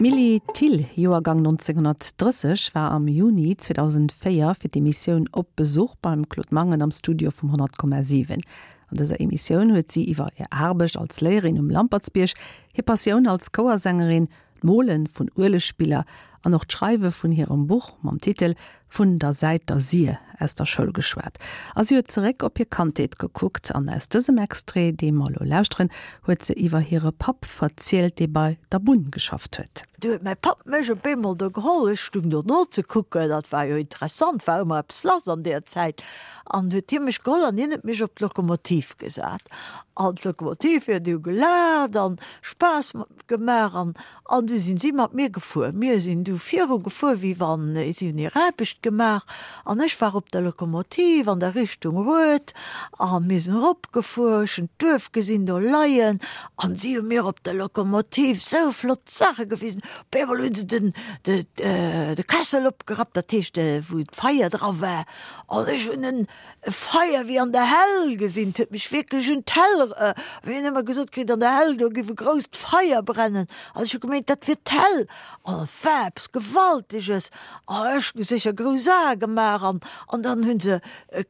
D'Milly Thill, Joergang 1930, war am Juni 2004 fir d'Emissioun Op Besuch beim Claude Mangen am Studio vum 100,7. An dëser Emissioun huet si iwwer hir Aarbecht als Léierin um Lampertsbierg, hir Passioun als Chouersängerin, d'Mole vun Uelegbiller an och d'Schreiwe vun hirem Buch mam Titel Vun der Säit der Sir aus der Schoul geschwat. A si huet zeréck op hir Kandheet gekuckt. An aus dësem Extrait, dee mer elo lauschteren, huet se iwwer hire Papp verzielt, dee bei der Bunn geschafft huet. Du huet mäi Papp mech op eemol do geholl, ech stung do nozekucken, dat war jo interessant, war ëmmer eppes lass an deer Zäit, an huet hie mech geholl an hien huet mech op d'Lokomotiv gesat. An d'Lokomotiv huet du gelaacht an Spaass gemaach an an du sinn si mat mir gefuer. Mir sinn du viru gefuer, wéi wann si hunn hir Aarbecht gemaach an ech war op der Lokomotiv an der Richtung Rued a mir sinn erop gefuer. Ech hunn d'Duerf gesinn do leien an si hu mir op der Lokomotiv sou flott Saache gewisen. Op eemol hu se den de de Kessel opgerappt, dat heescht wou d'Feier dra war an ech hunn en E Feier wéi an der Hell gesinn, 't huet mech wierklech un d'Hell er, mir hunn ëmmer gesot kritt, an der Hell, do giff e grousst Feier brennen, an ech hu gemeent, dat wier d'Hell, an et war eppes Gewalteges, a ech hu sécher grouss Ae gemaach, an, an dann hu se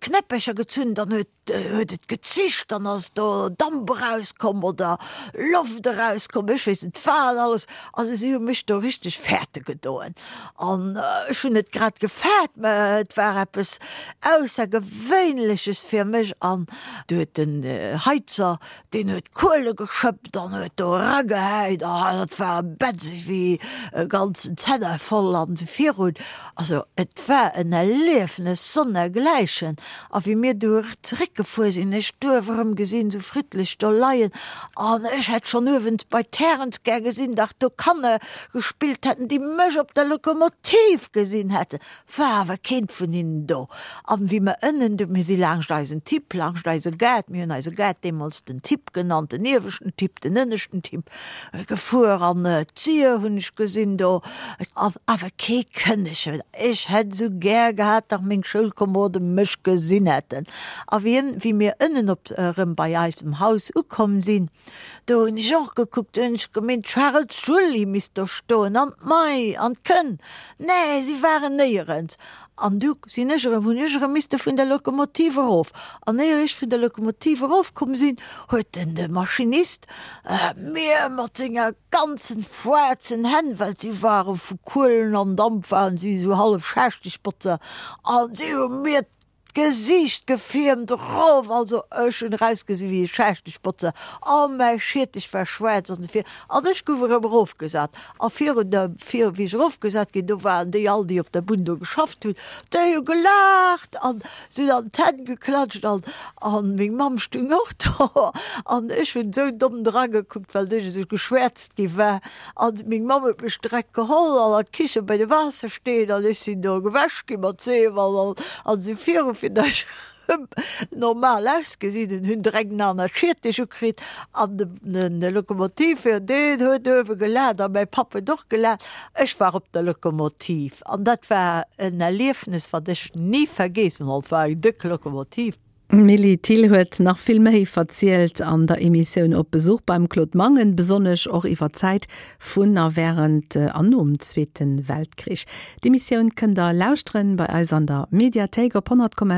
Knäppercher gezunn, dann huet, huet et gezischt, dann ass do Damp erauskomm oder Loft erauskomm, ech weess net wat alles, also si hu mech do richteg fäerte gedoen. An ech hunn et grad gefaart, mä et war eppes Aussergewéinleches fir mech. An du huet den Heizer, deen huet Kuele geschëppt an huet do eragehäit, a dat war bätzeg wéi e ganzen Zenner voll an esou virun. Also et war en Erliefnes sonnergläichen. A wéi mir du zeréckgefuer sinn, ech d'Duerf erëm gesinn, esou friddlech do leien, an ech hätt schonn uewen bei d'Härens gär gesinn, dach do Kanner gespillt hätten, déi mech op der Lokomotiv gesinn hätten, war awer keent vun hinnen do. An wéi mer ënnen du, mir si laangscht eisen Tipp, laangscht eise Gaart, mir hunn eise Gaart deemools den Tipp genannt, den ieweschten Tipp, den ënneschten Tipp, gefuer an d'Sier hunn ech gesinn do, an awer kee Kënnechen. Ech hätt esou gär gehat, dach meng Schoulkomerode mech gesinn hätten. A wéi ën, wéi mir ënnen op erëm bei eisem Haus ukomm sinn, Do hunn ech och gekuckt, do hunn ech gemeent, d'Charel Julie misst do stoen an d'May an d'Kënn. Nee, si waren néierens. An du sinn ech erëm, hunn ech erëm misste vun der Lokomotiv erof. An éier ech vun der Lokomotiv erofkomm sinn, huet den de Maschinist mir mat senger ganzen schwaarzen Hänn, well si ware vu Kuelen an Damp waren si esou hallef Schaaschtegbotzer, an si hu mir D'Gesiicht gefiermt erof, also ech hunn erausgesi wéi e Schaaschtegbotzer a mäi Schiertech war schwaarz an esou vir an ech gouf erëm erofgesat a virun der, vir wéi ech erofgesat ginn, do waren déi all déi op der Bunn do geschafft hunn, déi hu gelaacht an sinn an d'Hänn geklatscht an an meng Mamm stung och do an ech hunn esou domm dragekuckt, well ech esou geschwäerzt gi war. An meng Mamm huet mech direkt geholl an an d'Kiche bei de Waassersteen an ech sinn do gewäsch gi mat Seef an an esou viru fir datt ech erëm normal ausgesinn hunn. Hunn direkt en anert Schiertech ukritt an de Lokomotivführer deen huet uewe gelaacht a mäi Papp huet och gelaacht. Ech war op der Lokomotiv an dat war en Erliefnes wat ech ni vergeessen hunn. Et war eng déck Lokomotiv. D'Milly Thill huet nach vill méi verzielt an der Emissioun Op Besuch beim Claude Mangen, besonnesch och iwwer d'Zäit vun a wärend an nom Zweete Weltkrich. D'Emissioun kënnt der lauschteren bei eis an der Mediathéik op 100,7.